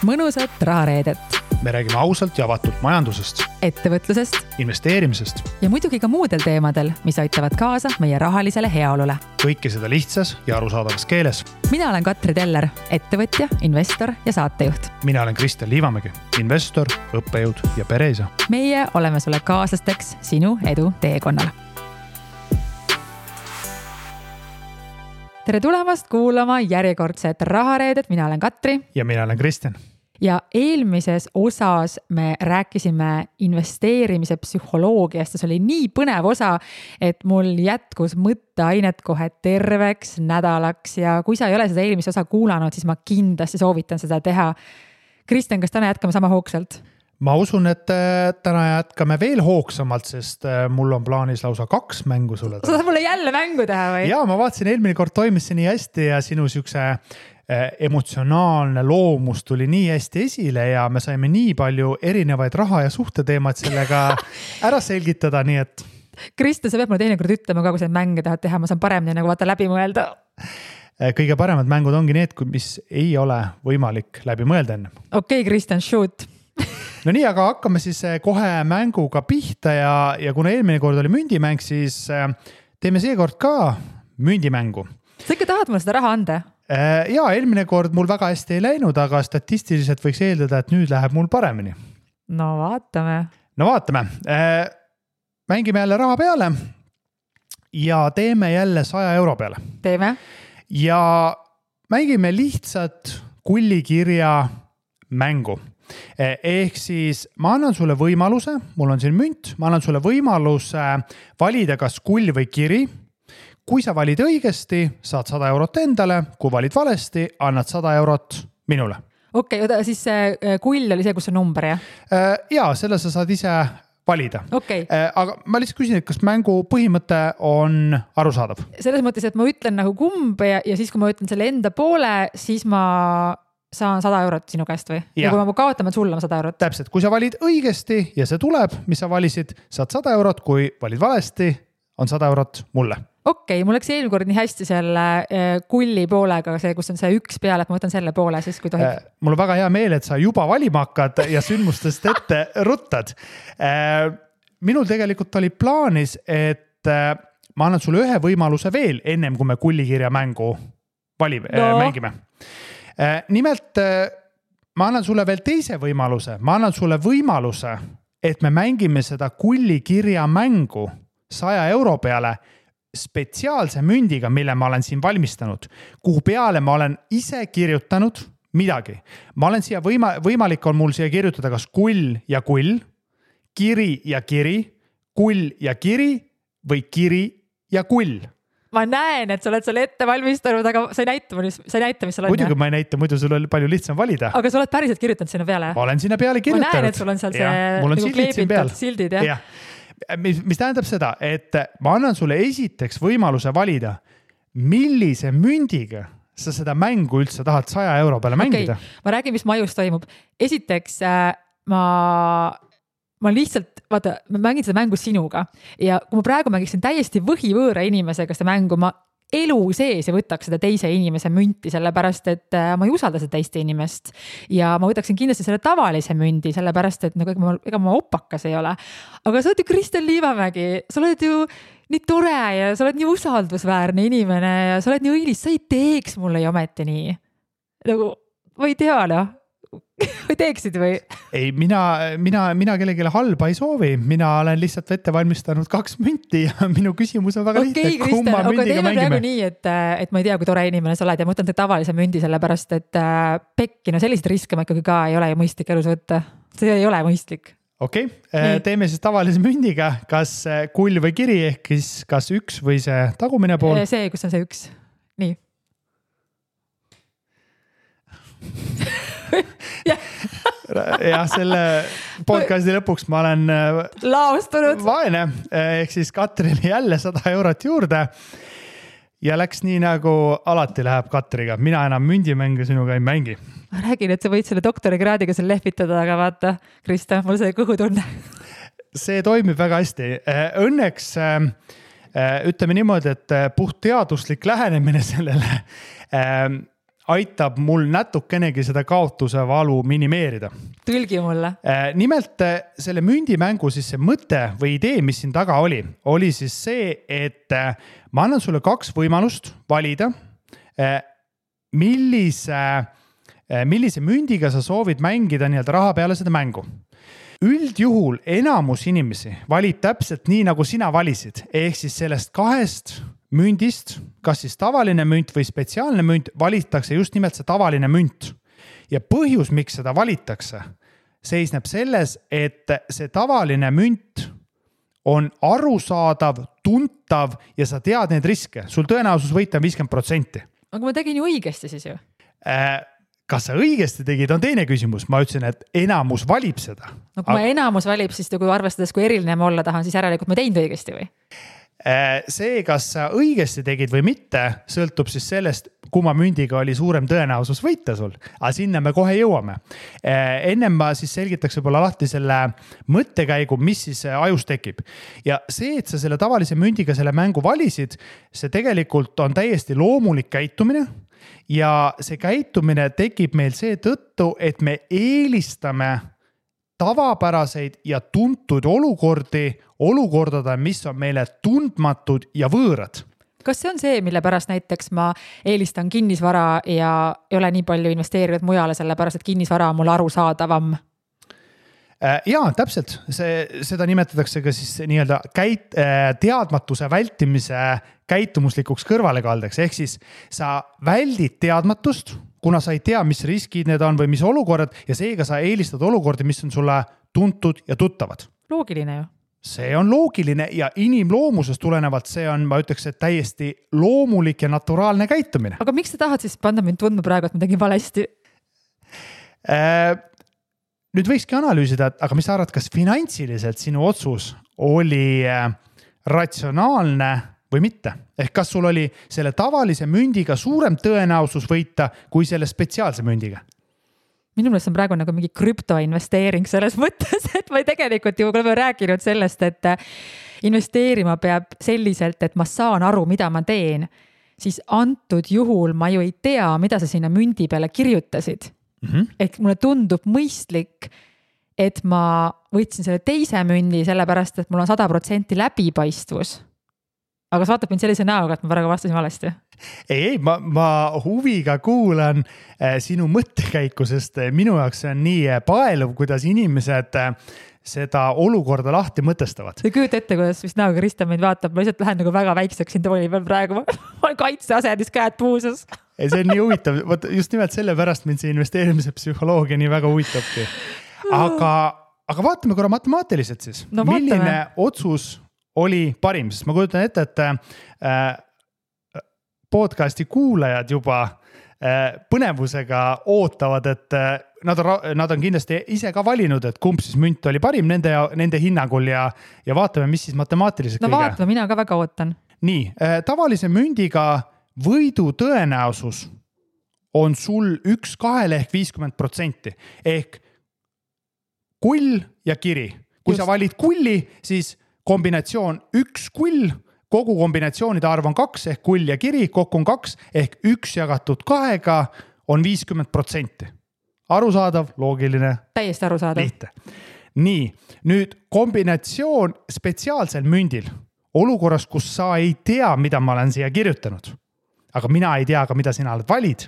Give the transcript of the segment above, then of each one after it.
mõnusat rahareedet. Me räägime ausalt ja avatult majandusest, ettevõtlusest investeerimisest ja muidugi ka muudel teemadel, mis aitavad kaasa meie rahalisele heaolule. kõike seda lihtsas ja arusaadavas keeles. Mina olen Katri Teller, ettevõtja, investor ja saatejuht. Mina olen Kristjan Liivamägi, investor, õppejõud ja pereisa. Meie oleme sulle kaaslasteks sinu edu teekonnal. Tere tulemast kuulama järjekordset rahareedet. Mina olen Katri. Ja mina olen Kristjan. Ja eelmises osas me rääkisime investeerimise psühholoogiast ja see oli nii põnev osa, et mul jätkus mõtteainet kohe terveks nädalaks ja kui sa ei ole seda eelmise osa kuulanud, siis ma kindlasti soovitan seda teha. Kristjan, kas täna jätkame sama hoogsalt? Ma usun, et täna jätkame veel hoogsamalt, sest mul on plaanis lausa 2 mängu sulle. Sa tahad mulle jälle mängu teha või? Ja ma vaatasin, eelmine kord toimis see nii hästi ja sinu siukse emotsionaalne loomus tuli nii hästi esile ja me saime nii palju erinevaid raha ja suhteteemad sellega ära selgitada, nii et... Kristjan, sa pead mulle teinekord ütlema ka, kui sa mänge tahad teha, ma saan paremini nagu vaata läbi mõelda. Kõige paremad mängud ongi need, mis ei ole võimalik läbi mõelda enne. Okei, Kristjan, shoot! No nii, aga hakkame siis kohe mänguga pihta ja kuna eelmine kord oli mündimäng, siis teeme seekord ka mündimängu. Sa ikka tahad mulle seda raha anda? Ja eelmine kord mul väga hästi ei läinud, aga statistiliselt võiks eeldada, et nüüd läheb mul paremini. No vaatame. Mängime jälle raha peale ja teeme jälle 100 euro peale. Teeme. Ja mängime lihtsalt kullikirja mängu. Ehk siis ma annan sulle võimaluse, mul on siin münt, ma annan sulle võimaluse valida kas kull või kiri. Kui sa valid õigesti, saad 100 eurot endale, kui valid valesti, annad 100 eurot minule. Okei, siis see kull oli see, kus on number, jah? Ja, selle sa saad ise valida. Okay. Aga ma lihtsalt küsin, et kas mängu põhimõte on arusaadav? Selles mõttes, et ma ütlen nagu kumb ja siis, kui ma ütlen selle enda poole, siis ma saan 100 eurot sinu käest või? Ja kui ma kaotan, ma sulle 100 eurot. Täpselt, kui sa valid õigesti ja see tuleb, mis sa valisid, saad 100 eurot, kui valid valesti, on 100 eurot mulle. Okei, mul läks eelmine kord nii hästi selle kulli poolega, see, kus on see üks peale, et ma võtan selle poole siis, kui tohib. Mul on väga hea meel, et sa juba valima hakkad ja sündmustest ette ruttad. Minul tegelikult oli plaanis, et ma annan sulle ühe võimaluse veel ennem, kui me kullikirja mängu mängime. Nimelt, ma annan sulle veel teise võimaluse. Ma annan sulle võimaluse, et me mängime seda kullikirja mängu 100 euro peale spetsiaalse mündiga, mille ma olen siin valmistanud, kuhu peale ma olen ise kirjutanud midagi. Ma olen siia võimalik on mul siia kirjutada kas kull ja kull, kiri ja kiri, kull ja kiri või kiri ja kull. Ma näen, et sa oled selle ette valmistanud, aga sa ei näita, mis sa oled. Muidugi ma ei näita, muidu sul oli palju lihtsam valida. Aga sa oled päriselt kirjutanud sinna peale? Ma olen sinna peale kirjutanud. Ma näen, et sul on seal see nagu sildid, jah? Mis tähendab seda, et ma annan sulle esiteks võimaluse valida, millise mündiga sa seda mängu üldse tahad 100 euro peale mängida. Ma räägin, mis majus toimub. Esiteks, ma lihtsalt, vaata, ma mängin seda mängu sinuga ja kui ma praegu mängiksin täiesti võhivõõra inimesega seda mängu, ma elu sees ja võtaks seda teise inimese münti, sellepärast, et ma ei usalda seda teiste inimest ja ma võtaksin kindlasti selle tavalise mündi, sellepärast, et ega ma opakas ei ole. Aga sa oled ju Kristjan Liivamägi, sa oled ju nii tore ja sa oled nii usaldusväärne inimene ja sa oled nii õilis, sa ei teeks mulle ju ometi nii. Nagu, ma ei tea, või teeksid või? Ei, mina kellegile halba ei soovi. Mina olen lihtsalt ette valmistanud 2 münti ja minu küsimus on väga lihtne. Okei, Kristjan, aga teeme praegu nii, et ma ei tea, kui tore inimene sa oled ja ma võtan tavalise mündi sellepärast, et pekki, no sellised riske ma ikkagi ka ei ole ju mõistlik elus võtta. See ei ole mõistlik. Okei, teeme siis tavalise mündiga, kas kull või kiri ehk kas üks või see tagumine pool? See, kus on see üks. Nii. Ja selle podcasti lõpuks ma olen laostunud vaene, ehk siis Katrile jälle 100 eurot juurde ja läks nii nagu alati läheb Katriga. Mina enam mündimänge sinuga ei mängi. Ma räägin, et sa võid selle doktorikraadiga seal lehvitada, aga vaata, Krista, mul see kõhutunne. See toimib väga hästi. Õnneks ütleme niimoodi, et puht teaduslik lähenemine sellele aitab mul natukenegi seda kaotuse valu minimeerida. Tõlgi mulle. Nimelt selle mündimängu siis see mõte või idee, mis siin taga oli siis see, et ma annan sulle 2 võimalust valida, millise mündiga sa soovid mängida nii-öelda raha peale seda mängu. Üldjuhul enamus inimesi valib täpselt nii, nagu sina valisid, ehk siis sellest 2 mündist, kas siis tavaline münt või spetsiaalne münt, valitakse just nimelt see tavaline münt. Ja põhjus, miks seda valitakse, seisneb selles, et see tavaline münt on arusaadav, tuntav ja sa tead neid riske. Sul tõenäosus võita 50%. Aga ma tegin ju õigesti siis ju. Kas sa õigesti tegid, on teine küsimus. Ma ütlesin, et enamus valib seda. No kui ma enamus valib, siis kui arvestades, kui eriline ma olla tahan, siis järelikult ma teinud õigesti või? See, kas sa õigesti tegid või mitte, sõltub siis sellest, kumma mündiga oli suurem tõenäosus võita sul. Aga sinna me kohe jõuame. Ennem ma siis selgitaks võib-olla lahti selle mõttekäigu, mis siis ajus tekib. Ja see, et sa selle tavalise mündiga selle mängu valisid, see tegelikult on täiesti loomulik käitumine. Ja see käitumine tekib meil see tõttu, et me eelistame tavapäraseid ja tuntud olukordade, mis on meile tundmatud ja võõrad. Kas see on see, mille pärast näiteks ma eelistan kinnisvara ja ei ole nii palju investeerinud mujale, sellepärast, et kinnisvara on mul arusaadavam? Jaa, täpselt. Seda nimetatakse ka siis nii-öelda teadmatuse vältimise käitumuslikuks kõrvalekaldeks. Ehk siis sa väldid teadmatust, kuna sa ei tea, mis riskid need on või mis olukorrad ja seega sa eelistad olukordi, mis on sulle tuntud ja tuttavad. Loogiline ju. See on loogiline ja inimloomusest tulenevalt see on, ma ütleks, et täiesti loomulik ja naturaalne käitumine. Aga miks sa tahad siis panna mind tundma praegu, et ma tegin valesti? Nüüd võikski analüüsida, aga mis sa arvad, kas finantsiliselt sinu otsus oli ratsionaalne või mitte? Ehk kas sul oli selle tavalise mündiga suurem tõenäosus võita kui selle spetsiaalse mündiga? Minu meelest on praegu nagu mingi krüptoinvesteering selles mõttes, et ma tegelikult ju oleme rääkinud sellest, et investeerima peab selliselt, et ma saan aru, mida ma teen. Siis antud juhul ma ju ei tea, mida sa sinna mündi peale kirjutasid. Ehk mulle tundub mõistlik, et ma võtsin selle teise mündi sellepärast, et mul on 100% läbipaistvus. Aga sa vaatab mind sellise näoga, et ma praegu vastasin valesti. Ei, ma huviga kuulan sinu mõttekäiku, sest minu jaoks see on nii paeluv, kuidas inimesed seda olukorda lahti mõtestavad. Sa küüd ette, kuidas vist näoga Krista meid vaatab, ma lihtsalt lähen nagu väga väikseks siin tooli peal praegu. Ma olen kaitseasendis käed puuses. Ei, see on nii huvitav. Just nimelt selle pärast mind see investeerimise psühholoogia nii väga huvitabki. Aga vaatame korra matemaatiliselt siis. No, milline otsus oli parim, sest ma kujutan ette, et podcasti kuulajad juba põnevusega ootavad, et nad on kindlasti ise ka valinud, et kumb siis münt oli parim nende hinnangul ja vaatame, mis siis matemaatiliselt kõige. No vaatame, mina ka väga ootan. Nii, tavalise mündiga võidu tõenäosus on sul 1-2 ehk 50%. Ehk kull ja kiri. Kui sa valid kulli, siis kombinatsioon 1 kull, kogu kombinatsioonide arv on 2 ehk kull ja kiri, kokku on 2 ehk 1 jagatud 2 on 50%. Arusaadav, loogiline. Täiesti arusaadav. Lihtne. Nii, nüüd kombinatsioon spetsiaalsel mündil, olukorras, kus sa ei tea, mida ma olen siia kirjutanud, aga mina ei tea ka, mida sina oled valid,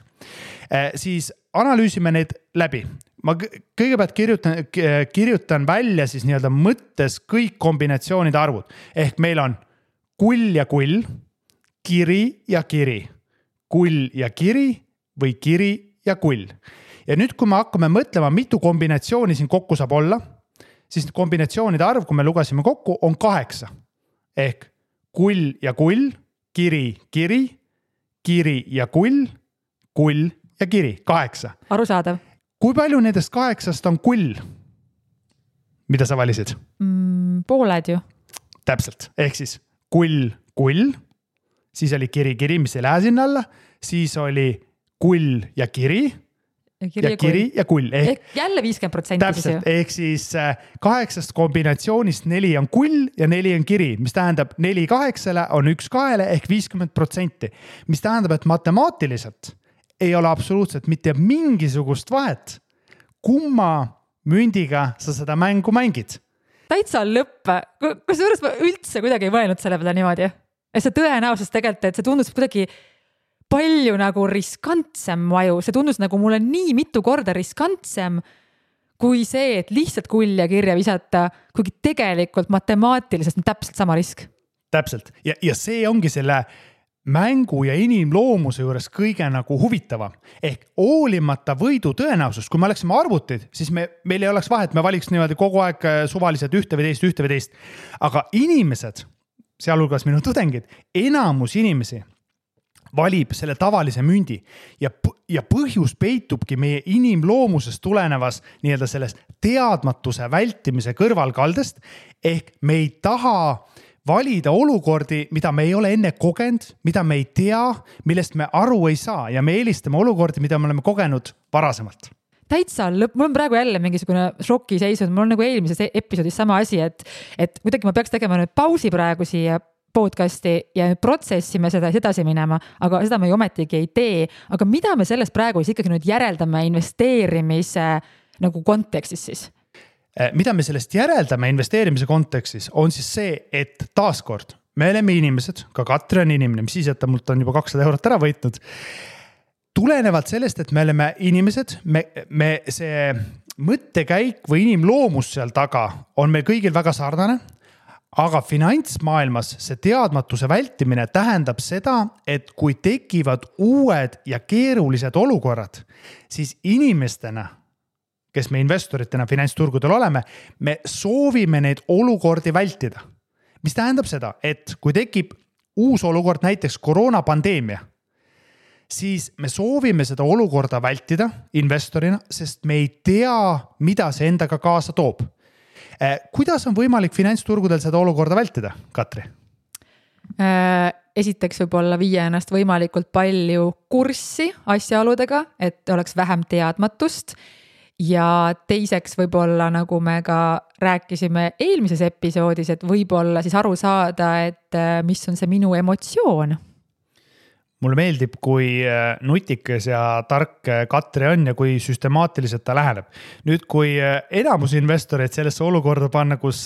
siis analüüsime need läbi. Ma kõigepealt kirjutan välja siis nii-öelda mõttes kõik kombinatsioonide arvud. Ehk meil on kull ja kull, kiri ja kiri, kull ja kiri või kiri ja kull. Ja nüüd, kui me hakkame mõtlema, mitu kombinatsiooni siin kokku saab olla, siis kombinatsioonide arv, kui me lugasime kokku, on 8. Ehk kull ja kull, kiri, kiri, kiri ja kull ja kiri, 8. Arusaadav. Kui palju nendest 8 on kull? Mida sa valisid? Pooled ju. Täpselt. Ehk siis kull, siis oli kiri, mis ei lähe sinna alla, siis oli kull ja kiri ja kull. Ehk jälle 50%. Täpselt. Ehk siis 8 kombinatsioonist 4 on kull ja 4 on kiri, mis tähendab 4 8 on 1 2 ehk 50%. Mis tähendab, et matemaatiliselt ei ole absoluutselt mitte mingisugust vahet, kumma mündiga sa seda mängu mängid. Täitsa lõpp. Kusjuures ma üldse kuidagi ei mõelnud selle peale niimoodi. Et see tõenäosus tegelikult, et see tundus kuidagi palju nagu riskantsem maju. See tundus nagu mulle nii mitu korda riskantsem kui see, et lihtsalt kulja kirja visata, kuigi tegelikult matemaatiliselt on täpselt sama risk. Täpselt. Ja see ongi selle mängu ja inimloomuse juures kõige nagu huvitavam. Ehk hoolimata võidu tõenäosus, kui me oleksime arvutid, siis meil ei oleks vahet, me valiks niimoodi kogu aeg suvaliselt ühte või teist. Aga inimesed, sealhulgas minu tudengid, enamus inimesi valib selle tavalise mündi ja põhjus peitubki meie inimloomusest tulenevas nii-öelda sellest teadmatuse vältimise kõrvalkaldest, ehk me ei taha valida olukordi, mida me ei ole enne kogenud, mida me ei tea, millest me aru ei saa ja me eelistame olukordi, mida me oleme kogenud varasemalt. Täitsa lõpp, mul on praegu jälle mingisugune šoki seisud, mul on nagu eelmises episoodis sama asi, et kuidagi ma peaks tegema nüüd pausi praegu siia podcasti ja protsessime seda edasi minema, aga seda me ju ometigi ei tee. Aga mida me sellest praegu siis ikkagi nüüd järeldame investeerimise nagu kontekstis siis? Mida me sellest järeldame investeerimise kontekstis on siis see, et taaskord me oleme inimesed, ka Katri on inimene, mis siis, et ta mult on juba 200 eurot ära võitnud. Tulenevalt sellest, et me oleme inimesed, me see mõttekäik või inimloomus seal taga on meil kõigil väga sarnane, aga finantsmaailmas see teadmatuse vältimine tähendab seda, et kui tekivad uued ja keerulised olukorrad, siis inimestena, kes me investoritena finantsturgudel oleme, me soovime neid olukordi vältida. Mis tähendab seda, et kui tekib uus olukord, näiteks koroonapandeemia, siis me soovime seda olukorda vältida investorina, sest me ei tea, mida see endaga kaasa toob. Kuidas on võimalik finantsturgudel seda olukorda vältida, Katri? Esiteks võib-olla viia ennast võimalikult palju kurssi asjaoludega, et oleks vähem teadmatust. Ja teiseks võib-olla, nagu me ka rääkisime eelmises episoodis, et võib-olla siis aru saada, et mis on see minu emotsioon. Mulle meeldib, kui nutikas ja tark Katri on ja kui süstemaatiliselt ta läheneb. Nüüd, kui enamus investoreid sellesse olukorda panna, kus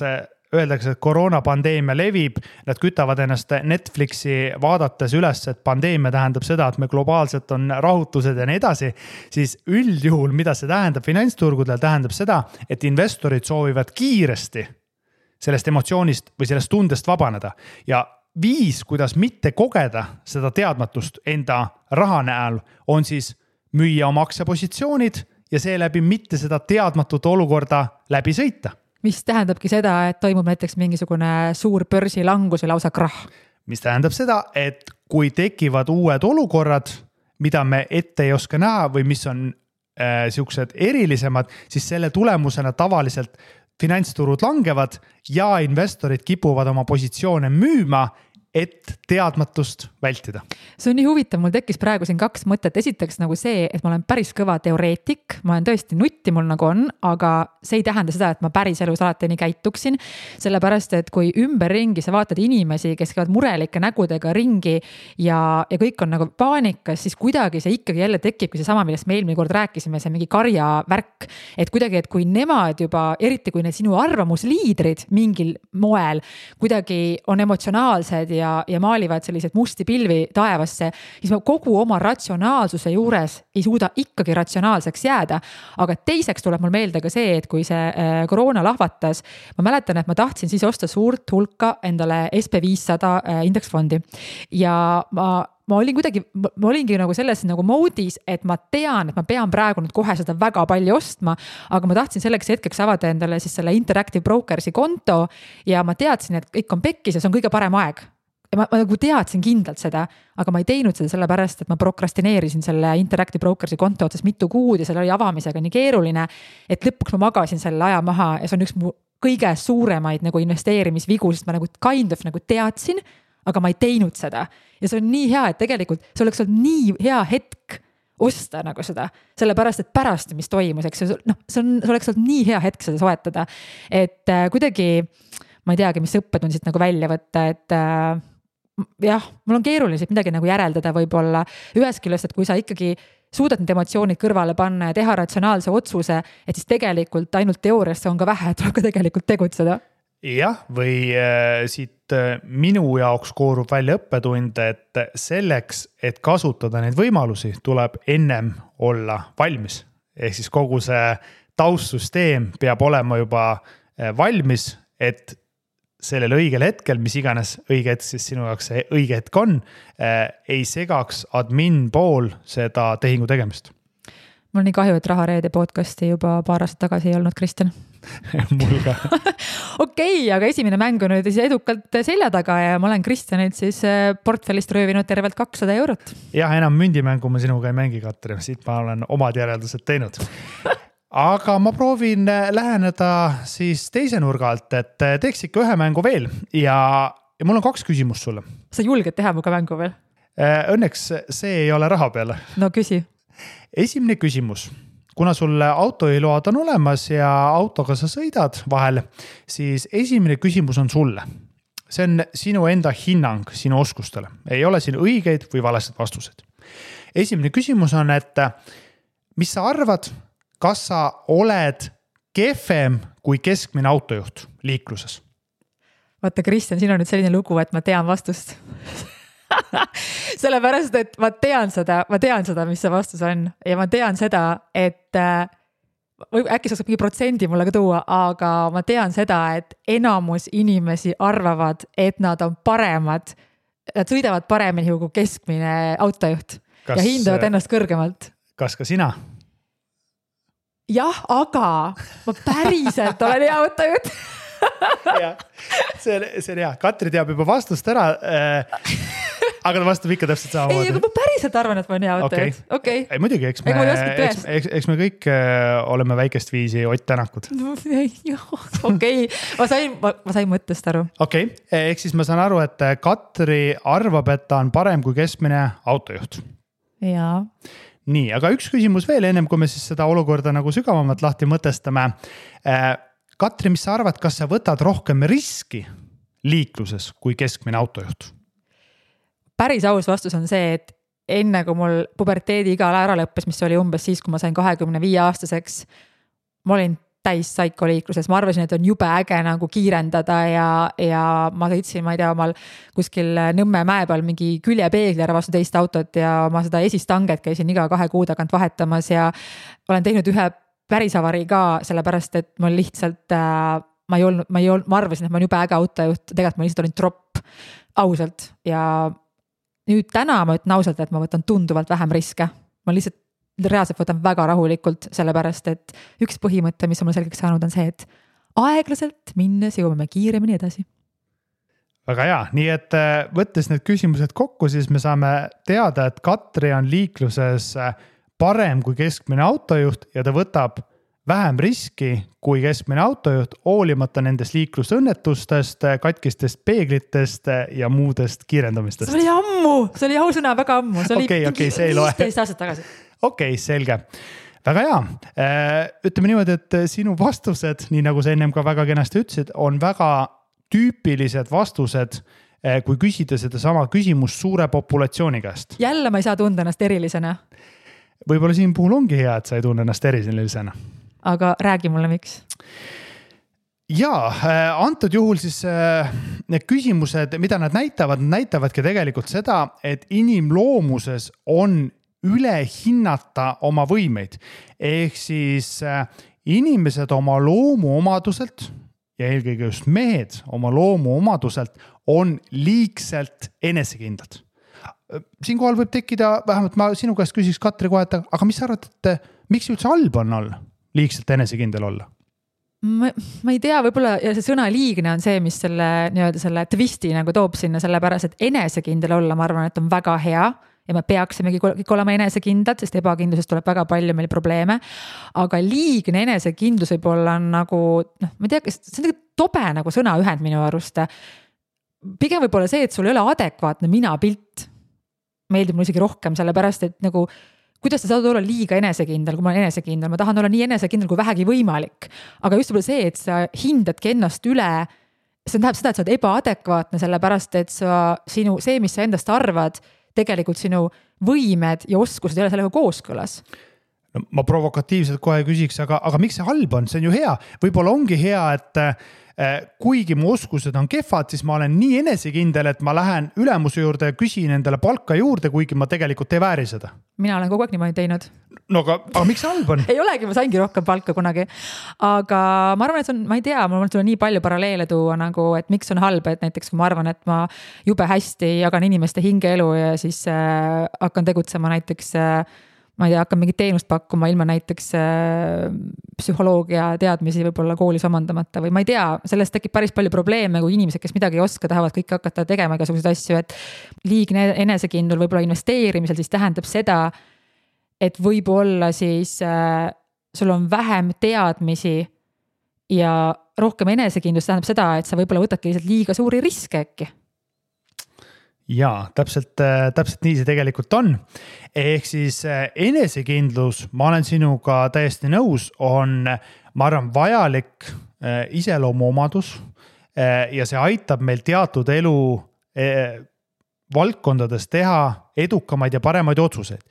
öeldakse, et koroonapandeemia levib, nad kütavad ennast Netflixi vaadates üles, et pandeemia tähendab seda, et me globaalselt on rahutused ja nii edasi, siis üldjuhul, mida see tähendab finantsturgudel, tähendab seda, et investorid soovivad kiiresti sellest emotsioonist või sellest tundest vabaneda ja viis, kuidas mitte kogeda seda teadmatust enda raha näol, on siis müüa oma aktsiapositsioonid ja seeläbi mitte seda teadmatut olukorda läbi sõita. Mis tähendabki seda, et toimub näiteks mingisugune suur börsilangus või lausa krah. Mis tähendab seda, et kui tekivad uued olukorrad, mida me ette ei oska näha või mis on siuksed erilisemad, siis selle tulemusena tavaliselt finantsturud langevad ja investorid kipuvad oma positsioone müüma, et teadmatust vältida. See on nii huvitav, mul tekkis praegu siin 2 mõtet. Esiteks nagu see, et ma olen päris kõva teoreetik, ma olen tõesti nutti mul nagu on, aga see ei tähenda seda, et ma päris elus alati nii käituksin, sellepärast, et kui ümberringi sa vaatad inimesi, kes käivad murelike nägudega ringi ja kõik on nagu paanikas, siis kuidagi see ikkagi jälle tekibki see sama, millest me eelmine kord rääkisime, see mingi karja värk, et kuidagi, et kui nemad juba, eriti kui need sinu arvamusliidrid mingil moel kuidagi on emotsionaalsed ja maalivad sellised musti pilvi taevasse, siis ma kogu oma ratsionaalsuse juures ei suuda ikkagi ratsionaalseks jääda. Aga teiseks tuleb mul meelde ka see, et kui see koroona lahvatas, ma mäletan, et ma tahtsin siis osta suurt hulka endale SP500 indeksfondi ja ma olingi nagu selles nagu moodis, et ma tean, et ma pean praegu nüüd kohe seda väga palju ostma, aga ma tahtsin selleks hetkeks avada endale siis selle Interactive Brokersi konto ja ma teadsin, et kõik on pekkis ja see on kõige parem aeg. Ja ma nagu teadsin kindlalt seda, aga ma ei teinud seda sellepärast, et ma prokrastineerisin selle Interactive Brokersi konto otsas mitu kuud ja selle oli avamisega nii keeruline, et lõpuks ma magasin selle aja maha ja see on üks mu kõige suuremaid nagu investeerimisvigu, sest ma nagu kind of nagu teadsin, aga ma ei teinud seda. Ja see on nii hea, et tegelikult see oleks olnud nii hea hetk osta nagu seda, sellepärast, et pärast, mis toimus, eks see oleks olnud nii hea hetk seda soetada, et kuidagi, ma ei teagi, mis õppetund siit nagu välja võtta, et jah, mul on keeruline siit midagi nagu järeldada võib-olla ühest küljest, et kui sa ikkagi suudad need emotsioonid kõrvale panna ja teha ratsionaalse otsuse, et siis tegelikult ainult teoorias see on ka vähe, tuleb ka tegelikult tegutseda. Jah, või siit minu jaoks koorub välja õppetund, et selleks, et kasutada neid võimalusi, tuleb ennem olla valmis. Ehk siis kogu see taustsüsteem peab olema juba valmis, et sellel õigel hetkel, mis iganes õige hetk siis sinu jaoks see õige hetk on, ei segaks admin pool seda tehingu tegemist. Mul on nii kahju, et Rahareede podcasti juba paar aastat tagasi ei olnud, Kristjan. Mul ka. Okei, aga esimene mäng on nüüd edukalt selja taga ja ma olen Kristjanilt siis portfellist röövinud tervelt 200 €. Jah, enam mündimängu ma sinuga ei mängi, Katri. Siit ma olen omad järeldused teinud. Aga ma proovin läheneda siis teise nurga alt, et teeks ikka ühe mängu veel ja mul on 2 küsimust sulle. Sa julged teha muga mängu veel? Õnneks see ei ole raha peale. No küsi. Esimene küsimus. Kuna sul autojuhiload on olemas ja autoga sa sõidad vahel, siis esimene küsimus on sulle. See on sinu enda hinnang sinu oskustele. Ei ole siin õigeid või valesed vastused. Esimene küsimus on, et mis sa arvad, kas sa oled kehvem kui keskmine autojuht liikluses? Vaata, Kristjan, siin on nüüd selline lugu, et ma tean vastust. Sellepärast, et ma tean seda, mis see vastus on ja ma tean seda, et või äkki sa saab mingi protsendi mulle ka tuua, aga ma tean seda, et enamus inimesi arvavad, et nad on paremad, nad sõidavad paremini kui keskmine autojuht ja hindavad ennast kõrgemalt. Kas ka sina? Jah, aga ma päriselt olen hea autojuht. Ja, see on hea. Katri teab juba vastust ära, aga ta vastab ikka täpselt samamoodi. Ei, aga ma päriselt arvan, et ma olen hea autojuht. Okay. Ei, muidugi, eks me kõik oleme väikest viisi Ott Tänakud. Okei, ma sain mõttest aru. Okei, ehk siis ma saan aru, et Katri arvab, et ta on parem kui keskmine autojuht. Jaa. Nii, aga üks küsimus veel ennem, kui me siis seda olukorda nagu sügavamalt lahti mõtestame. Katri, mis sa arvad, kas sa võtad rohkem riski liikluses kui keskmine autojuht? Päris aus vastus on see, et enne kui mul puberteedi iga ära lõppes, mis oli umbes siis, kui ma sain 25-aastaseks, ma olin täis saikoliikluses. Ma arvasin, et on jube äge nagu kiirendada ja ma sõitsin, ma ei tea, omal kuskil Nõmme mäe peal mingi küljepeegli ära vastu teist autot ja ma seda esistanget käisin iga 2 kuu tagant vahetamas ja olen teinud ühe päris avarii ka, sellepärast, et ma lihtsalt, ma arvasin, et ma olen jube äge autojuht, tegelikult ma lihtsalt olin tropp ausalt ja nüüd täna ma ütlen ausalt, et ma võtan tunduvalt vähem riske. Ma lihtsalt reaalselt võtan väga rahulikult, sellepärast, et üks põhimõte, mis on mul selgeks saanud, on see, et aeglaselt minnes jõuame kiiremini edasi. Väga hea, nii et võttes need küsimused kokku, siis me saame teada, et Katri on liikluses parem kui keskmine autojuht ja ta võtab vähem riski kui keskmine autojuht, hoolimata nendest liiklusõnnetustest, katkistest peeglitest ja muudest kiirendamistest. See oli ammu, see oli ausõna väga ammu. See oli see ei loe. 15 aastat tagasi. Okei, selge. Väga hea. Ütleme niimoodi, et sinu vastused, nii nagu sa ennem ka väga kenasti ütlesid, on väga tüüpilised vastused, kui küsida seda sama küsimust suure populatsiooni käest. Jälle ma ei saa tunda ennast erilisena. Võib-olla siin puhul ongi hea, et sa ei tunne ennast erilisena. Aga räägi mulle, miks? Jaa, antud juhul siis need küsimused, mida nad näitavadki tegelikult seda, et inimloomuses on üle hinnata oma võimeid. Ehk siis inimesed oma loomuomaduselt ja eelkõige just mehed oma loomuomaduselt on liigselt enesekindlad. Siinkohal võib tekkida, vähemalt ma sinu käest küsiks Katri kohe, aga mis sa arvad, et miks üldse halb on olla liigselt enesekindel olla? Ma ei tea, võib-olla ja see sõna liigne on see, mis selle twisti nagu toob sinna, sellepärast, et enesekindel olla, ma arvan, et on väga hea ja me peaksimegi kõik olema enesekindlad, sest ebakindlusest tuleb väga palju meil probleeme. Aga liigne enesekindlus võib-olla on nagu, ma ei tea, see on tobe nagu sõnaühend minu arust. Pigem võib-olla see, et sul ei ole adekvaatne mina-pilt. Meeldib mul isegi rohkem, sellepärast, et nagu kuidas sa saad olla liiga enesekindel, kui ma olen enesekindel, ma tahan olla nii enesekindel kui vähegi võimalik. Aga just võib-olla see, et sa hindadki ennast üle see tähendab seda, et sa oled ebaadekvaatne, sellepärast et see, mis sa endast arvad, tegelikult sinu võimed ja oskused ei ole sellega kooskõlas. No, ma provokatiivselt kohe küsiks, aga miks see halb on? See on ju hea. Võib-olla ongi hea, et kuigi mu oskused on kehvad, siis ma olen nii enesekindel, et ma lähen ülemuse juurde ja küsin endale palka juurde, kuigi ma tegelikult ei vääri seda. Mina olen kogu aeg niimoodi teinud. No aga miks see halb on? Ei olegi, ma saingi rohkem palka kunagi. Aga ma arvan, et see on, ma ei tea, mul tuleb nii palju paralleele tuua, nagu, et miks on halb, et näiteks kui ma arvan, et ma jube hästi jagan inimeste hingeelu ja siis hakkan tegutsema näiteks ma ei tea, hakkan mingit teenust pakkuma ilma näiteks psühholoogia teadmisi võib-olla koolis omandamata või ma ei tea, sellest tekib päris palju probleeme, kui inimesed, kes midagi ei oska, tahavad kõik hakata tegema igasuguseid asju, et liigne enesekindlul võib-olla investeerimisel siis tähendab seda, et võib-olla siis sul on vähem teadmisi ja rohkem enesekindlust tähendab seda, et sa võib-olla võtadki lihtsalt liiga suuri riske äkki. Jaa, täpselt nii see tegelikult on. Ehk siis enesekindlus, ma olen sinuga täiesti nõus, on, ma arvan, vajalik iseloomuomadus ja see aitab meil teatud elu valdkondades teha edukamaid ja paremaid otsuseid.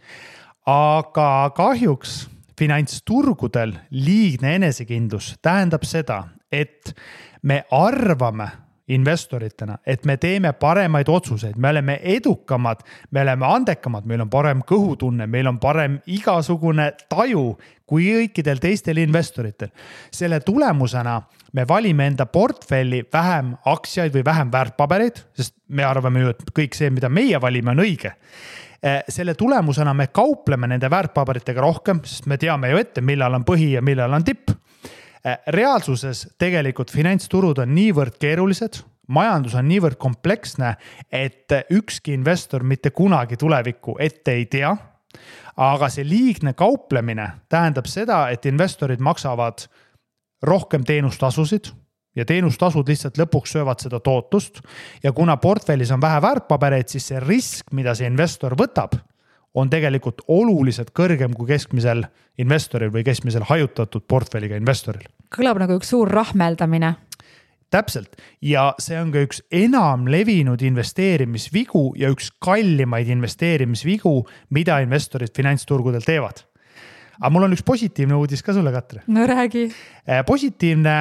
Aga kahjuks finantsturgudel liigne enesekindlus tähendab seda, et me arvame investoritena, et me teeme paremaid otsuseid, me oleme edukamad, me oleme andekamad, meil on parem kõhutunne, meil on parem igasugune taju kui kõikidel teistel investoritel. Selle tulemusena me valime enda portfelli vähem aktsiaid või vähem väärtpabereid, sest me arvame ju, et kõik see, mida meie valime, on õige. Selle tulemusena me kaupleme nende väärtpaberitega rohkem, sest me teame ju ette, millal on põhi ja millal on tipp. Reaalsuses tegelikult finantsturud on niivõrd keerulised, majandus on niivõrd kompleksne, et ükski investor mitte kunagi tulevikku ette ei tea. Aga see liigne kauplemine tähendab seda, et investorid maksavad rohkem teenustasusid ja teenustasud lihtsalt lõpuks söövad seda tootust. Ja kuna portfellis on vähe väärtpabereid, siis see risk, mida see investor võtab, on tegelikult oluliselt kõrgem kui keskmisel investoril või keskmisel hajutatud portfelliga investoril. Kõlab nagu üks suur rahmeldamine. Täpselt. Ja see on ka üks enam levinud investeerimisvigu ja üks kallimaid investeerimisvigu, mida investorid finantsturgudel teevad. Aga mul on üks positiivne uudis ka sulle, Katri. No räägi. Positiivne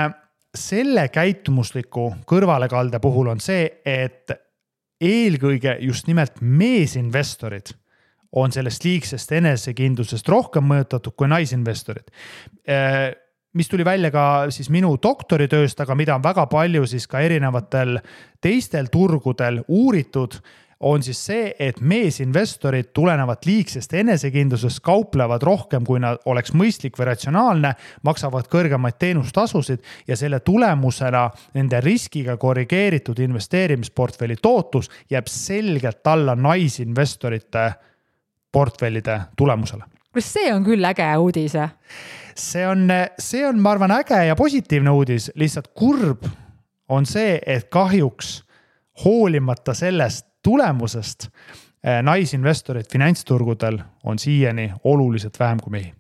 selle käitumusliku kõrvalekalde puhul on see, et eelkõige just nimelt meesinvestorid on sellest liigsest enesekindlusest rohkem mõjutatud kui naisinvestorid. Mis tuli välja ka siis minu doktoritööst, aga mida on väga palju siis ka erinevatel teistel turgudel uuritud, on siis see, et meesinvestorid tulenevad liigsest enesekindlusest kauplevad rohkem, kui nad oleks mõistlik või ratsionaalne, maksavad kõrgemaid teenustasusid ja selle tulemusena nende riskiga korrigeeritud investeerimisportfelli tootlus jääb selgelt alla naisinvestorite portfellide tulemusele. See on küll äge uudis. See on, ma arvan, äge ja positiivne uudis. Lihtsalt kurb on see, et kahjuks hoolimata sellest tulemusest naisinvestorid finantsturgudel on siiani oluliselt vähem kui mehi.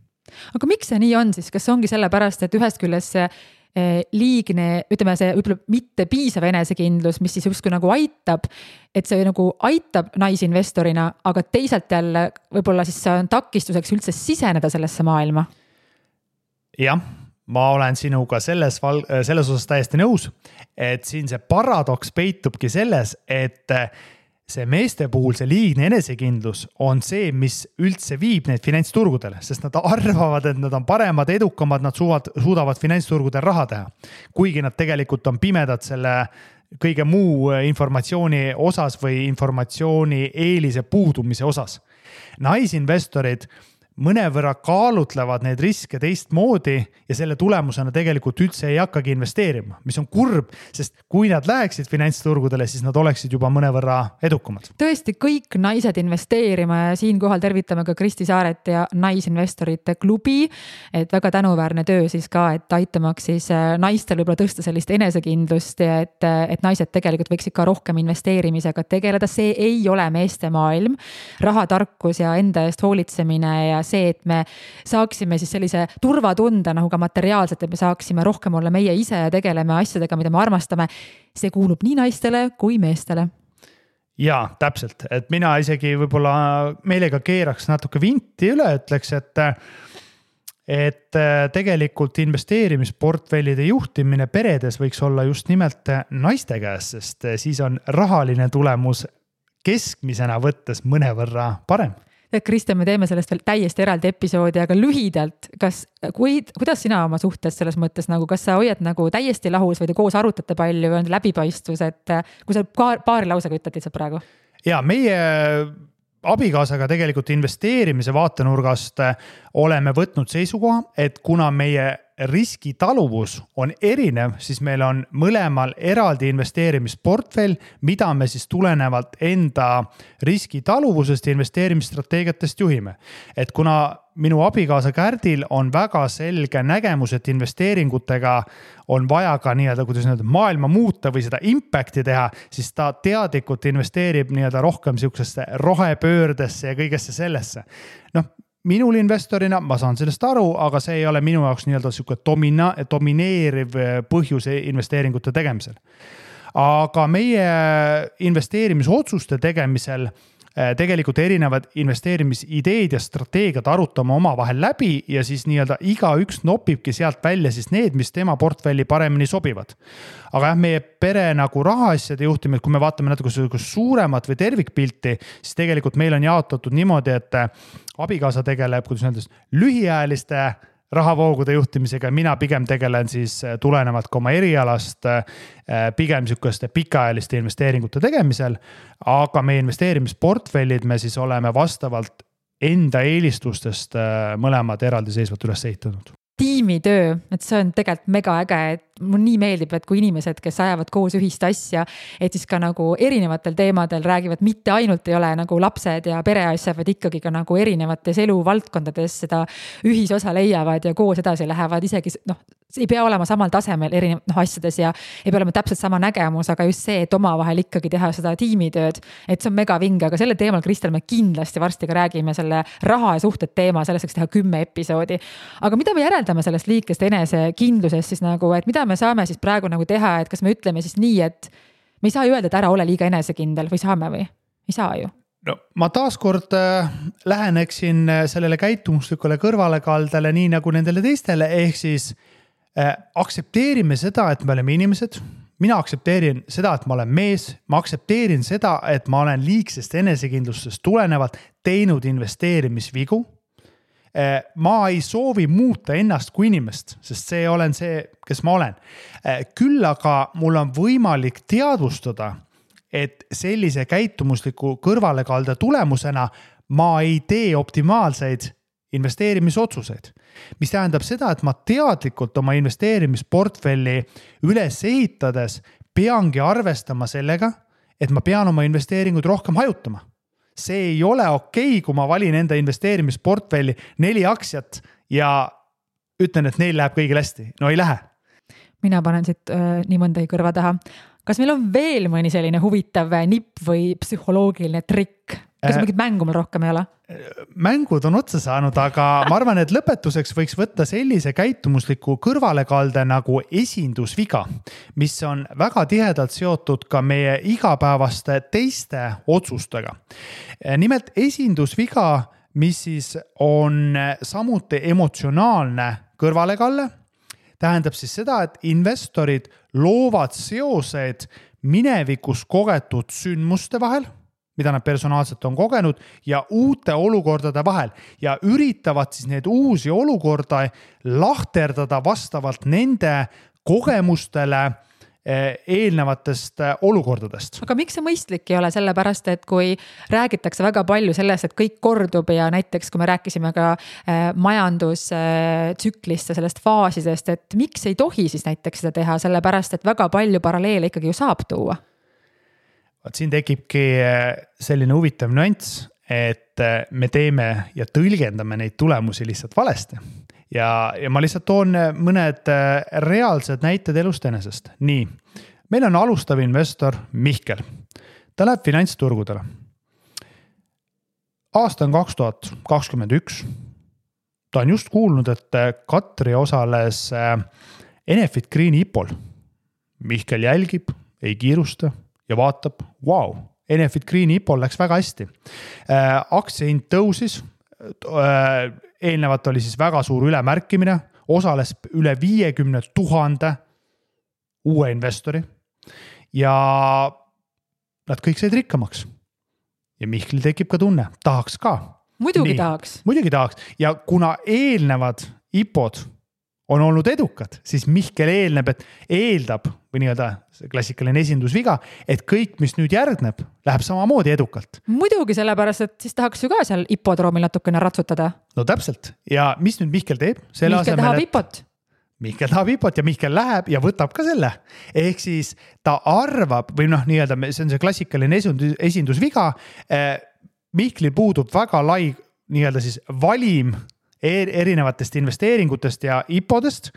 Aga miks see nii on siis? Kas ongi sellepärast, et ühest küljest see liigne, ütleme see mitte piisav enesekindlus, mis siis justkui nagu aitab, et see nagu aitab naisinvestorina, aga teisalt jälle võib-olla siis see on takistuseks üldse siseneda sellesse maailma? Jah, ma olen sinuga selles osas täiesti nõus, et siin see paradoks peitubki selles, et see meeste puhul see liigne enesekindlus on see, mis üldse viib neid finantsturgudele, sest nad arvavad, et nad on paremad, edukamad, nad suudavad finantsturgudel raha teha. Kuigi nad tegelikult on pimedad selle kõige muu informatsiooni osas või informatsiooni eelise puudumise osas. Naisinvestorid mõnevõrra kaalutlevad neid riske teistmoodi ja selle tulemusena tegelikult üldse ei hakkagi investeerima, mis on kurb, sest kui nad läheksid finantsturgudele, siis nad oleksid juba mõnevõrra edukamad. Tõesti, kõik naised investeerima ja siinkohal tervitame ka Kristi Saaret ja naisinvestorite klubi, et väga tänuväärne töö siis ka, et aitamaks siis naistel võib-olla tõsta sellist enesekindlust ja et naised tegelikult võiksid ka rohkem investeerimisega tegeleda. See ei ole meeste maailm, rahatarkus ja enda eest hoolitsemine ja see, et me saaksime siis sellise turvatunde nagu ka materiaalselt, et me saaksime rohkem olla meie ise ja tegeleme asjadega, mida me armastame. See kuulub nii naistele kui meestele. Jaa, täpselt, et mina isegi võib-olla meelega keeraks natuke vinti üle, ütleks, et tegelikult investeerimisportfellide juhtimine peredes võiks olla just nimelt naiste käes, sest siis on rahaline tulemus keskmisena võttes mõnevõrra parem. Kristjan, me teeme sellest veel täiesti eraldi episoodi, aga lühidalt, kuidas sina oma suhtes selles mõttes, nagu, kas sa hoiad nagu täiesti lahus või te koos arutate palju või on läbipaistvus, et kui sa paari lausega ütled lihtsalt praegu? Ja meie abikaasaga tegelikult investeerimise vaatenurgast oleme võtnud seisukoha, et kuna meie riskitaluvus on erinev, siis meil on mõlemal eraldi investeerimisportfell, mida me siis tulenevalt enda riskitaluvusest ja investeerimisstrateegiatest juhime. Et kuna minu abikaasa Kärdil on väga selge nägemus, et investeeringutega on vaja ka maailma muuta või seda impacti teha, siis ta teadlikult investeerib rohkem siuksesse rohepöördesse ja kõigesse sellesse. Minul investorina, ma saan sellest aru, aga see ei ole minu jaoks siuke domineeriv põhjus investeeringute tegemisel. Aga meie investeerimisotsuste tegemisel tegelikult erinevad investeerimisideed ja strateegiad arutame oma vahel läbi ja siis iga üks nopibki sealt välja siis need, mis tema portfelli paremini sobivad. Aga meie pere nagu rahaasjade juhtimine, kui me vaatame natuke suuremat või tervikpilti, siis tegelikult meil on jaotatud niimoodi, et abikaasa tegeleb lühiajaliste rahavoogude juhtimisega, mina pigem tegelen siis tulenevalt ka oma erialast pigem sükeste pikaajaliste investeeringute tegemisel, aga meie investeerimisportfellid me siis oleme vastavalt enda eelistustest mõlemad eraldiseisvalt üles ehitanud. Tiimitöö, et see on tegelikult mega äge, et mul nii meeldib, et kui inimesed, kes ajavad koos ühist asja, et siis ka nagu erinevatel teemadel räägivad, mitte ainult ei ole nagu lapsed ja pereasja, vaid ikkagi ka nagu erinevates eluvaldkondades seda ühisosa leiavad ja koos edasi lähevad, isegi ei pea olema samal tasemel asjades ja ei pea olema täpselt sama nägemus, aga just see, et oma vahel ikkagi teha seda tiimitööd, et see on mega vinge, aga selle teemal, Kristel, me kindlasti varsti ka räägime selle raha ja suhted teema, selleks teha 10 episoodi. Aga mida me järeldame sellest liikest enesekindlusest siis nagu, et mida me saame siis praegu nagu teha, et kas me ütleme siis nii, et me ei saa ju öelda, et ära ole liiga enesekindel või saame või? Ei saa ju. No, ma taaskord läheneksin sellele käitumuslikule kõrvalekaldele nii nagu nendele teistele, ehk siis aktsepteerime seda, et me oleme inimesed. Mina aktsepteerin seda, et ma olen mees. Ma aktsepteerin seda, et ma olen liigsest enesekindlustest tulenevalt teinud investeerimisvigu. Ma ei soovi muuta ennast kui inimest, sest see olen see, kes ma olen. Küll aga mul on võimalik teadvustada, et sellise käitumusliku kõrvalekalde tulemusena ma ei tee optimaalseid investeerimisotsuseid, mis tähendab seda, et ma teadlikult oma investeerimisportfelli üles ehitades peangi arvestama sellega, et ma pean oma investeeringud rohkem hajutama. See ei ole okei, kui ma valin enda investeerimisportfelli 4 aktsiat ja ütlen, et neil läheb kõigil hästi. No ei lähe. Mina panen siit nii mõndagi kõrva taha. Kas meil on veel mõni selline huvitav nipp või psühholoogiline trikk? Kas mingit mängu meil rohkem ei ole? Mängud on otsa saanud, aga ma arvan, et lõpetuseks võiks võtta sellise käitumusliku kõrvalekalde nagu esindusviga, mis on väga tihedalt seotud ka meie igapäevaste teiste otsustega. Nimelt esindusviga, mis siis on samuti emotsionaalne kõrvalekalle, tähendab siis seda, et investorid loovad seosed minevikus kogetud sündmuste vahel, mida nad personaalselt on kogenud ja uute olukordade vahel ja üritavad siis need uusi olukorda lahterdada vastavalt nende kogemustele eelnevatest olukordadest. Aga miks see mõistlik ei ole? Sellepärast, et kui räägitakse väga palju sellest, et kõik kordub ja näiteks kui me rääkisime ka majandustsüklist ja sellest faasidest, et miks ei tohi siis näiteks seda teha, sellepärast, et väga palju paralleele ikkagi ju saab tuua. Siin tekibki selline huvitav nüanss, et me teeme ja tõlgendame neid tulemusi lihtsalt valesti. Ja ma lihtsalt toon mõned reaalsed näited elust enesest. Nii, meil on alustav investor Mihkel. Ta läheb finantsturgudele. Aasta on 2021. ta on just kuulnud, et Katri osales Enefit Greeni IPO-l. Mihkel jälgib, ei kiirusta ja vaatab, vau, Enefit Greeni IPO-l läks väga hästi. Aktsiahind tõusis, eelnevalt oli siis väga suur ülemärkimine, osales üle 50 000 uue investori ja nad kõik said rikkamaks. Ja Mihkel tekib ka tunne, tahaks ka. Muidugi tahaks. Muidugi tahaks ja kuna eelnevad IPO-d on olnud edukad, siis Mihkel eeldab või nii-öelda klassikaline esindusviga, et kõik, mis nüüd järgneb, läheb samamoodi edukalt. Muidugi sellepärast, et siis tahaks ju ka seal IPO-droomil natukene ratsutada. No täpselt. Ja mis nüüd Mihkel teeb? Mihkel tahab IPO-t. Mihkel tahab IPO-t ja Mihkel läheb ja võtab ka selle. Ehk siis ta arvab, või noh, nii-öelda see on see klassikaline esindusviga. Mihklil puudub väga lai nii-öelda siis valim erinevatest investeeringutest ja IPO-dest,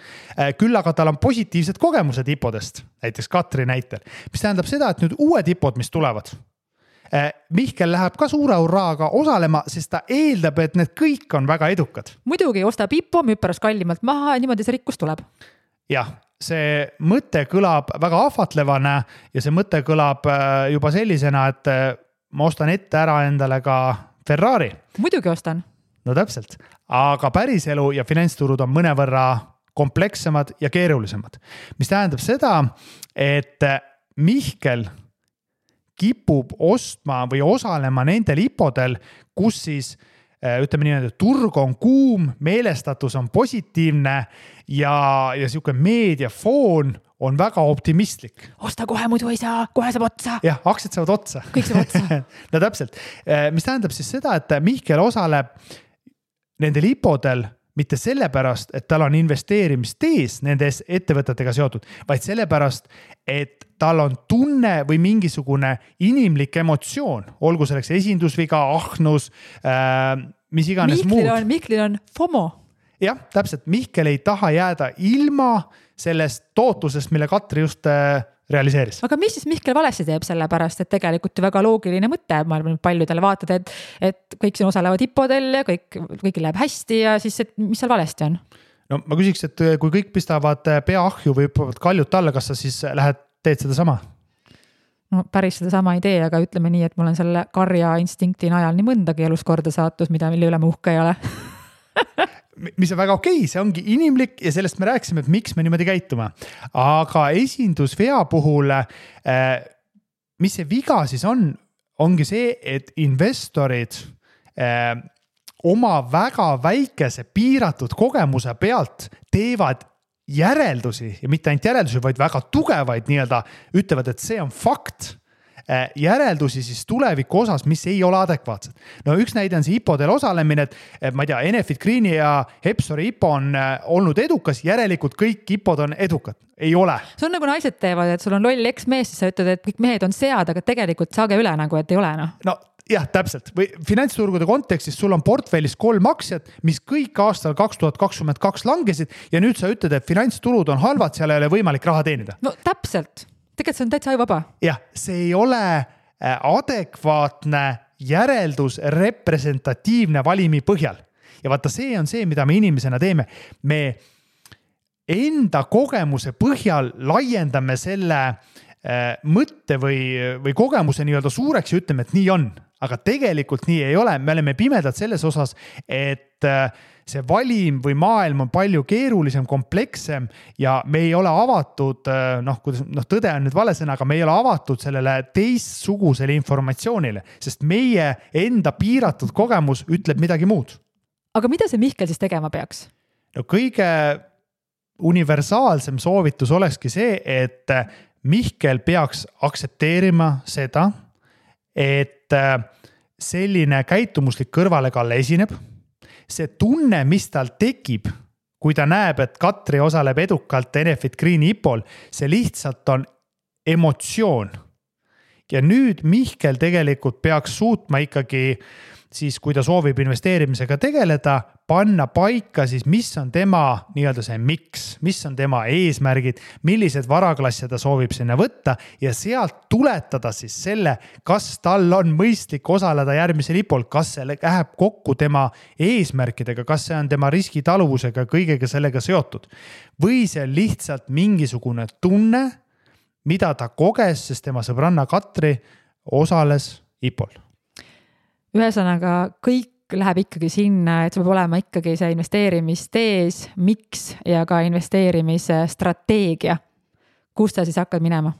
küll aga tal on positiivsed kogemused IPO-dest, näiteks Katri näitel, mis tähendab seda, et nüüd uued IPO-d, mis tulevad, Mihkel läheb ka suure urraaga osalema, sest ta eeldab, et need kõik on väga edukad. Muidugi ostab IPO, müüb pärast kallimalt maha ja niimoodi see rikkus tuleb. Jah, see mõte kõlab väga ahvatlevana ja see mõte kõlab juba sellisena, et ma ostan ette ära endale ka Ferrari. Muidugi ostan. No täpselt, aga päriselu ja finantsturud on mõnevõrra komplekssemad ja keerulisemad, mis tähendab seda, et Mihkel kipub ostma või osalema nendel IPO-del, kus siis ütleme nii, et turg on kuum, meelestatus on positiivne ja siuke meediafoon on väga optimistlik. Osta kohe, muidu ei saa, kohe saab otsa. Jah, aktsiad saavad otsa. Kõik saab otsa. No täpselt, mis tähendab siis seda, et Mihkel osaleb nendel IPO-del mitte sellepärast, et tal on investeerimistees nendes ettevõtetega seotud, vaid sellepärast, et tal on tunne või mingisugune inimlik emotsioon, olgu selleks esindusviga, ahnus, mis iganes muud. Mihklil on FOMO. Jah, täpselt. Mihkel ei taha jääda ilma sellest tootlusest, mille Katri just realiseeris. Aga mis siis Mihkel valesti teeb sellepärast, et tegelikult ju väga loogiline mõte, ma arvan, paljudele vaatad, et kõik siin osalevad IPO-del ja kõik läheb hästi ja siis, et mis seal valesti on? No ma küsiks, et kui kõik pistavad pea ahju või hüppavad kaljut alla, kas sa siis teed seda sama? No päris seda sama ei tee, aga ütleme nii, et mul on selle karja instinkti najal nii mõndagi elus korda saatus, mille üle ma uhke ei ole. Mis on väga okei, see ongi inimlik ja sellest me rääkisime, et miks me niimoodi käituma. Aga esindusvea puhul, mis see viga siis ongi see, et investorid oma väga väikese piiratud kogemuse pealt teevad järeldusi ja mitte ainult järeldusi, vaid väga tugevaid nii-öelda ütlevad, et see on fakt. Järeldusi siis tuleviku osas, mis ei ole adekvaatsed. No üks näide on see IPO-del osalemine, et ma ei tea, Enefit Greeni ja Hepsori IPO on olnud edukas, järelikult kõik IPO-d on edukad. Ei ole. See on nagu naised teevad, et sul on loll eksmees, siis sa ütled, et kõik mehed on sead, aga tegelikult saage üle nagu, et ei ole. No jah, täpselt. Või finantsturgude kontekstis sul on portfellis 3 aktsiat, mis kõik aastal 2022 langesid ja nüüd sa ütled, et finantsturud on halvad, seal ei ole võimalik raha teenida. No täpselt. Tegelikult see on täitsa ajuvaba. Jah, see ei ole adekvaatne järeldus representatiivne valimi põhjal. Ja vaata, see on see, mida me inimesena teeme. Me enda kogemuse põhjal laiendame selle mõtte või kogemuse nii-öelda suureks ja ütleme, et nii on. Aga tegelikult nii ei ole. Me oleme pimedad selles osas, et see valim või maailm on palju keerulisem, komplekssem ja me ei ole avatud, tõde on nüüd vale sõna, aga me ei ole avatud sellele teistsugusele informatsioonile, sest meie enda piiratud kogemus ütleb midagi muud. Aga mida see Mihkel siis tegema peaks? No kõige universaalsem soovitus olekski see, et Mihkel peaks aktsepteerima seda, et selline käitumuslik kõrvalekalle esineb. See tunne, mis tal tekib, kui ta näeb, et Katri osaleb edukalt Enefit Greeni IPO-l, see lihtsalt on emotsioon. Ja nüüd Mihkel tegelikult peaks suutma ikkagi siis, kui ta soovib investeerimisega tegeleda, panna paika siis, mis on tema nii-öelda see miks, mis on tema eesmärgid, millised varaklasse ta soovib sinna võtta ja sealt tuletada siis selle, kas tal on mõistlik osaleda järgmisel IPO-l, kas see läheb kokku tema eesmärkidega, kas see on tema riskitaluvusega, kõigega sellega seotud. Või see on lihtsalt mingisugune tunne, mida ta koges, sest tema sõbranna Katri osales IPO-l. Ühesõnaga, kõik läheb ikkagi sinna, et see peab olema ikkagi see investeerimistees, miks ja ka investeerimise strateegia. Kus ta siis hakkad minema?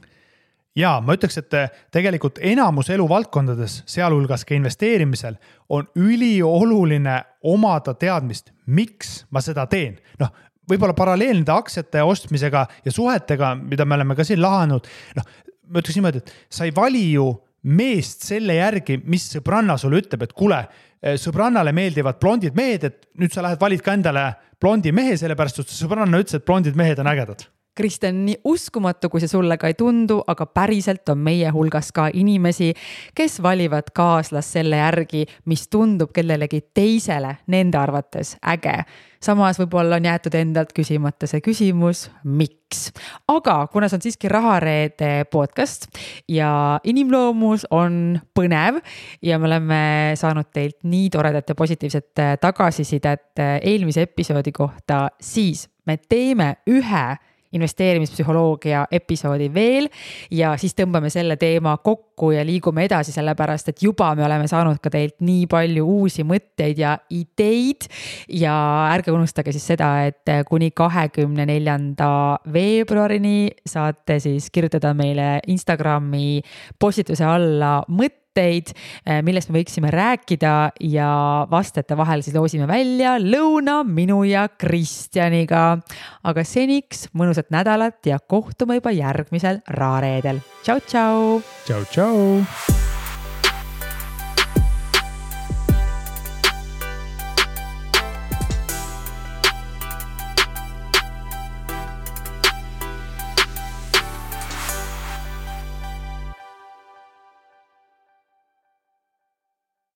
Jaa, ma ütleks, et tegelikult enamus eluvaldkondades, sealhulgas ka investeerimisel, on ülioluline omada teadmist, miks ma seda teen. Võib-olla paralleelnide aktsiate ostmisega ja suhetega, mida me oleme ka siin lahanud, ma ütleks niimoodi, et sa ei vali ju meest selle järgi, mis sõbranna sulle ütleb, et kuule, sõbrannale meeldivad blondid mehed, et nüüd sa lähed valid ka endale blondi mehe, sellepärast, et sõbranna ütles, et blondid mehed on ägedad. Kristjan, nii uskumatu, kui see sulle ka ei tundu, aga päriselt on meie hulgas ka inimesi, kes valivad kaaslas selle järgi, mis tundub kellelegi teisele nende arvates äge. Samas võib-olla on jäetud endalt küsimata see küsimus, miks. Aga kuna see on siiski Rahareede podcast ja inimloomus on põnev ja me oleme saanud teilt nii toredat ja positiivset tagasisidet eelmise episoodi kohta, siis me teeme ühe investeerimispsühholoogia episoodi veel ja siis tõmbame selle teema kokku ja liigume edasi, sellepärast, et juba me oleme saanud ka teilt nii palju uusi mõtteid ja ideid ja ärge unustage siis seda, et kuni 24. veebruarini saate siis kirjutada meile Instagrami postituse alla mõtteid, millest me võiksime rääkida ja vastajate vahel siis loosime välja lõuna minu ja Kristjaniga. Aga seniks mõnusat nädalat ja kohtume juba järgmisel Rahareedel. Tšau, tšau! Tšau, tšau!